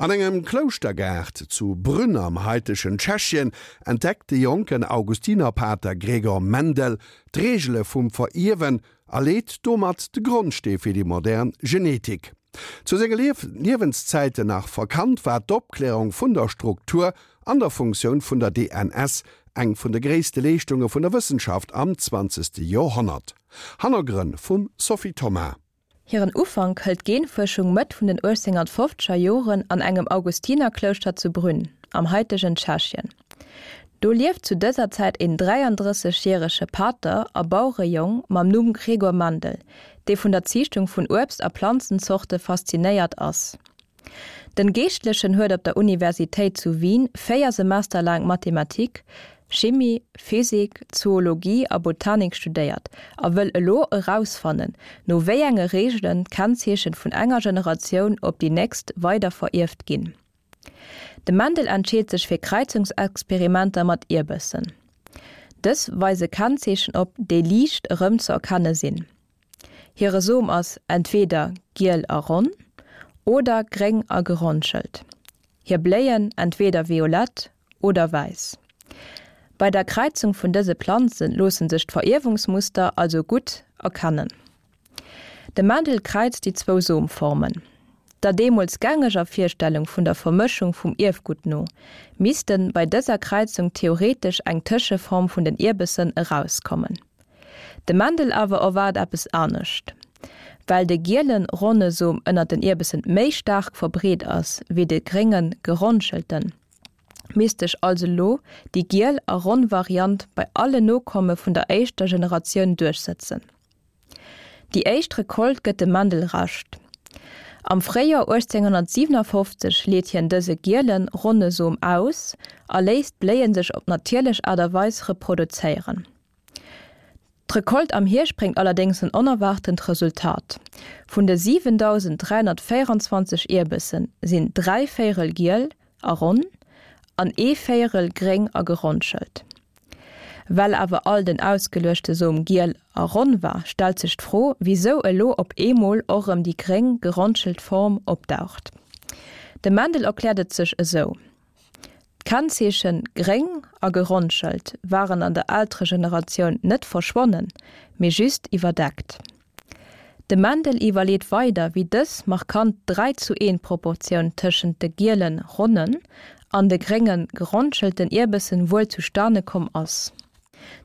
An engem Klouschtergaart zu Brünn am haitegen Tschechien entdeckt de jonken Augustinerpater Gregor Mendel d'Reegele vum Verierwen a leet domat de Grondstee fir déi modern Genetik. Zu senge Liewenszäiten nach verkannt, war d'Opklärung vun der Struktur an der Funktioun vun der DNS eng vun de gréisste Leeschtunge vun der Wëssenschaft am zwanzegste Joerhonnert. Hannergrënn vum Sophie Thomas. Hiren Ufank hëlt d'Genfuerschung Mëtt vun den 1850er Joren an engem Augustinerklouschter zu Brünn, am haitegen Tschechien. Do lieft zu dëser Zäit een 33 järege Pater a Bauerejong mam Numm Gregor Mendel, dee vun der Ziichtung vun Uebst a Planzenzorte faszinéiert ass. Den Geeschtlechen huet op der Universitéit zu Wien 4 Semester laang Mathematik, Chimie, Physik, Zoologie a Botanik studéiert a wëll elo erausfannen, no wéi enge Reegelen d'Kennzeechen vun enger Generatioun op déi nächst weider verierft ginn. De Mendel entscheet sech fir Kräizungsexperimenter mat Ierbessen. Dës weise Kennzeechen op, déi liicht erëmzeerkenne sinn. Hire Som ass entweeder giel a ronn oder gréng a geronschelt. Hir Bléien entweeder violett oder wäiss. Bei der Kräizung vun dëse Planze loosse sech d'Verierwungsmuster also gutt erkennen. De Mendel kräizt déi zwou Somformen. Der deemools gängeger Virstellung vun der Vermëschung vum Ierfgutt no, misste bei dëser Kräizung theoretesch eng Tëscheform vun den Ierbessen erauskommen. De Mendel awer erwaart eppes anescht. Well de gielen, ronne Som ënnert den Ierbessen méi staark verbreet ass wéi de gréngen, geronschelten, misst sech also lo déi giel a ronn Variant bei alle Nokomme vun der éischter Generatioun duerchsëtzen. Déi éischt Recolte gëtt dem Mendel Recht. Am Fréijoer 1857 leet hien dëse gielen, ronne Som aus a léisst d'Bléie sech op natierlech Aart a Weis reproduzéieren. D'Recolte am Hierscht bréngt allerdéngs en onerwaartent Resultat, Vun de 7.324 Ierbessen sinn dräivéierel giel a ronn an ee Véierel gréng a geronschelt. Well awer all den ausgeluechte Som giel a ronn war, stellt sech d'Fro, wisou elo op eemol och erëm déi gréng, geronschelt Form opdaucht. De Mendel erkläert et sech esou, D'Kennzeechen gréng a geronschelt waren an der Elteregeneratioun net verschwonnen, mee just iwwerdeckt. De Mendel iwwerleet weider, wéi dës markant 3 zu 1 Proportioun tëschent de gielen, ronnen an de gréngen, geronschelten Ierbessen wuel zustane komm ass.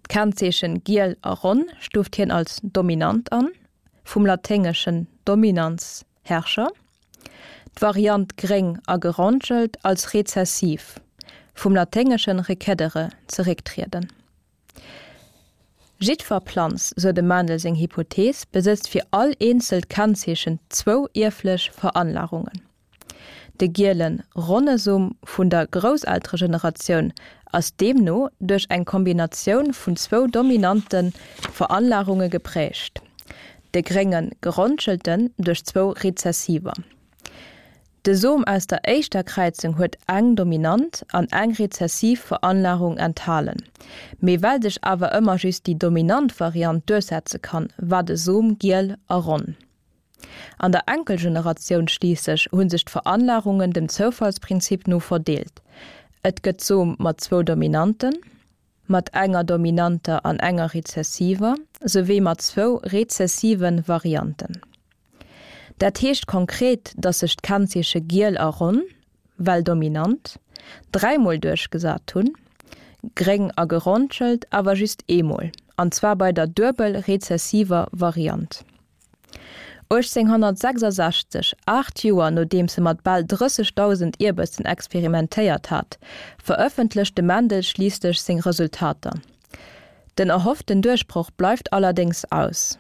D'Kennzeechen giel a ronn stuuft hien als dominant an, vum laténgeschen dominans, Herrscher, d'Variant gréng a geronschelt als rezessiv, vum laténgeschen recedere, zerécktrieden. Jiddwer Planz, sou dem Mendel seng Hypothees, besëtzt fir all eenzelt Kennzeechen zwou ierflech Veranlagungen. De gielen, ronne Som vun der Grousselteregeneratioun ass deemno duerch eng Kombinatioun vun zwou dominante Veranlagunge geprägt, de gréngen, geronschelten duerch zwou rezessiver. De Som aus der éischter Kräizung huet eng dominant an eng rezessiv Veranlagung enthalen, mee well sech awer ëmmer just déi dominant Variant duerchsetze kann, war de Som giel a ronn. An der Enkelgeneratioun schliisslech hu sech d'Veranlagungen dem Zoufallsprinzip no verdeelt, et gëtt Som mat zwou Dominanten, mat enger dominanter an enger rezessiver, souwéi mat zwou rezessive Varianten. Dat heescht konkret, datt sech d'Kennzeeche giel a ronn, well dominant, dräimol duerchgesat hunn, gréng a geronschelt awer just eemol, an zwar bei der duebel rezessiver Variant. 1866, 8 Joer nodeems e mat bal 30.000 Ierbessen experimentéiert hat, verëffentlecht de Mendel schliisslech seng Resultater. Den erhofften Duerchbroch bleift allerdéngs aus.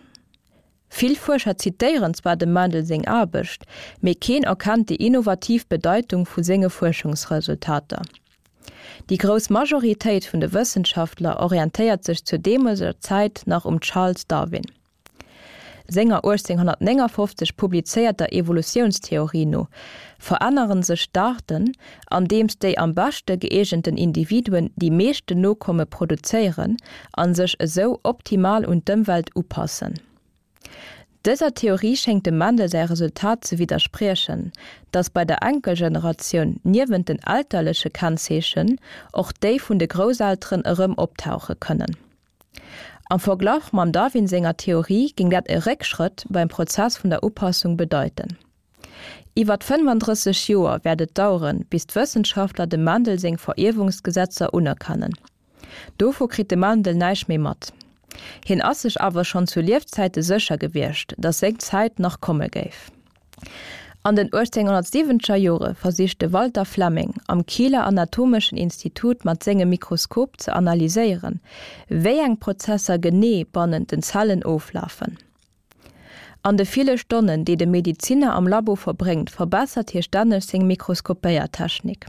Vill Fuerscher zitéieren zwar dem Mendel seng Aarbecht, mee keen erkennt déi innovativ Bedeitung vu senge Fuerschungsresultater. Déi grouss Majoritéit vun de Wëssenschaftler orientéiert sech zur deemoleger Zäit nach um Charles Darwin senger 1859 publizéierter Evolutiounstheorie no verännere sech d'Aarten, andeems déi am beschte gëeegenten Individuen déi meeschten Nokomme produzéieren a sech esou optimal un d'Ëmwelt upassen. Dëser Theorie schéngt dem Mendel säi Resultat ze widderspriechen, datt bei der Enkelgeneratioun niewent den elterleche Kennzeechen och déi vun de Grousselteren erëm optauche kënnen. Am Verglach mam Darwin senger Theorie géing dat e Réckschrëtt beim Prozess vun der Upassung bedeiten. Iwwert 35 Joer wäert et daueren, bis d'Wëssenschaftler dem Mendel seng Verierwungsgesetzer unerkennen. Dovu kritt de Mendel näischt méi mat. Hien ass sech awer schonn zu Liefzäite sécher gewiescht, datt seng Zäit nach komme géif. An den 1870er Jore versicht de Walter Flemming am Kieler Anatomeschen Institut mat sengem Mikroskop ze analyséieren, wéi eng Prozesser genee bannent den Zellen oflafen. An de ville Stonnen, déi de Mediziner am Labo verbréngt, verbessert hie stänneg seng Mikroskopéiertechnik.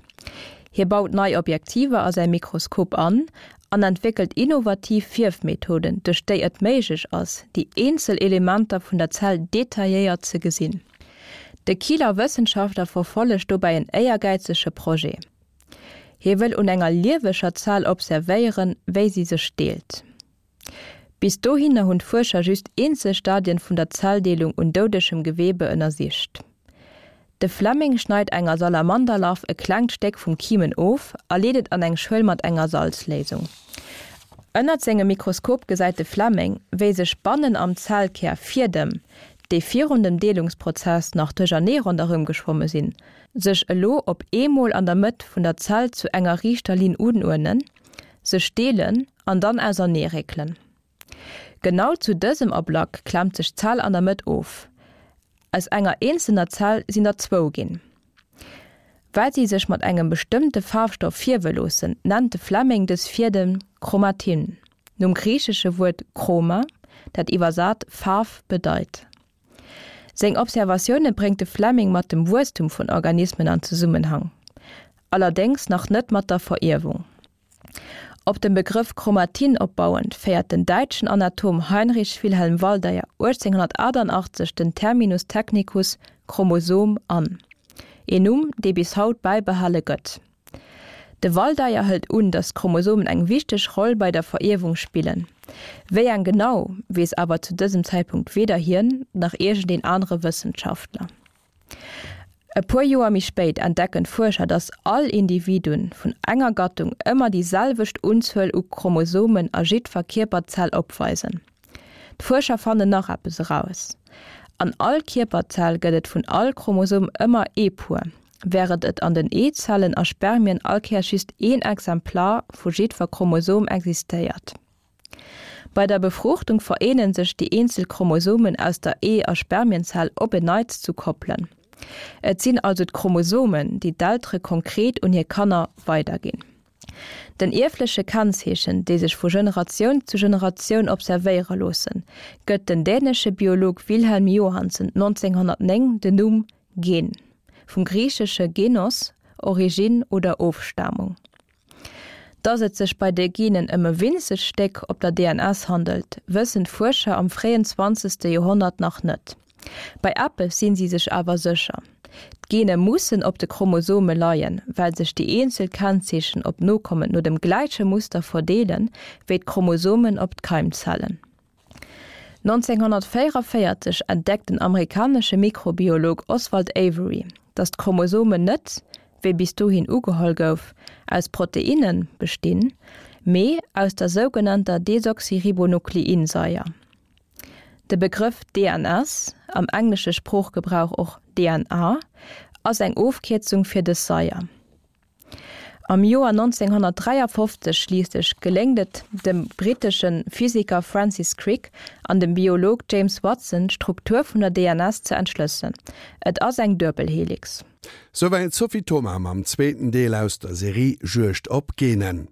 Hie baut nei Objektiver a säi Mikroskop an an entwéckelt innovativ Fierfmethoden, duerch déi et méiglech ass, déi eenzel Elementer vun der Zell detailléiert ze gesinn. De Kieler Wëssenschaftler verfollegt dobäi en éiergäizege Projet. Hie wëll un enger lieweger Zell observéieren, wéi si sech deelt. Bis dohinner hunn d'Fuerscher just eenzel Stadien vun der Zelldeelung un doudegem Gewebe ënnersicht. De Fleming schneit enger Salamanderlarv e klengt Stéck vum Kimen of a leet et an eng Schuel mat enger Salzléisung. Ënnert sengem Mikroskop gesäit de Fleming, wéi sech bannen am Zellkär Fiedem, déi virun dem Deelungsprozess nach duerchernee ronderëm geschwomme sinn, sech elo op eemol an der Mëtt vun der Zell zu enger riichter Linn unuerdnen, sech deelen an dann auserneeréckelen. Genau zu dësem Ablack klemmt sech d'Zell an der Mëtt of. Aus enger eenzelner Zell sinn der zwou ginn. Well si sech mat engem bestëmmte Faarfstoff fierwe loossen, nennt de Fleming dës Fiedem Chromatin, nom griichesche Wuert chroma, dat iwwersat Faarf bedeit. Seng Observatioune bréngt de Fleming mat dem Wuesstum vun Organismen an Zesummenhang, allerdéngs nach net mat der Verierwung. Op dem Begrëff Chromatin opbauend féiert den däitschen Anatom Heinrich Wilhelm Waldeyer 1888 den Terminus technicus Chromosom an, een Numm, dee bis haut bäibehale gëtt. De Waldeyer hëlt un, datt d'Chromosomen eng wichteg Roll bei der Verierwung spillen. Wéi eng genau, weess awer zu dësem Zäitpunkt weder hien, nach iergendeen anere Wëssenschaftler. E puer Joer méi spéit entdecken d'Fuerscher, datt all Individuen vun enger Gattung ëmmer déi selwecht Unzuel u Chromosomen a jiddwer Kierperzell opweisen. D'Fuerscher fannen nach eppes eraus, An all Kierperzell gëtt et vun all Chromosom ëmmer ee Puer, wärend et an den Eezellen a Spermien all Kéiers just een Exemplar vu jiddwer Chromosom existéiert. Bei der Befruchtung vereene sech déi eenzel Chromosomen aus der Ee a Spermienzell op en Neits zu Koppelen. Et sinn also d'Chromosomen, déi d'Eltere konkret un hir Kanner weiderginn. Den ierfleche Kennzeechen, déi sech vu Generatioun zu Generatioun observéiere loossen, gëtt den dänesche Biolog Wilhelm Johannsen 1909 den Numm Gen, vum griichesche genos, Originn oder Ofstamung. Datt et sech bei de Genen ëm e winzegt Stéck op der DNS handelt, wëssen d'Fuerscher am fréien zwanzegste Joerhonnert nach net. Bei eppes sinn si sech awer sécher, D'Gene mussen op de Chromosome leien, well sech déi eenzel Kennzeechen op d'Nokommen no dem gläiche Muster verdeelen, wéi d'Chromosomen op d'Keimzellen. 1944 entdeckt den amerikanesche Mikrobiolog Oswald Avery, datt d'Chromosomen net, wéi bis dohin ugeholl gouf, aus Proteinne bestinn, mee aus der sougenannter Desoxyribonukleinsaier. De Begrëff DNS, am englesche Sproochgebrauch och DNA, ass eng Ofkierzung fir dës Saier. Am Joer 1953 schliisslech geléngt et dem brittesche Physiker Francis Crick an dem Biolog James Watson d'Struktur vun der DNS ze entschlëssen, et ass eng Duebelhelix. Souwäit d'Sophie Thoma mam zweeten Deel aus der Serie Juegd op Genen.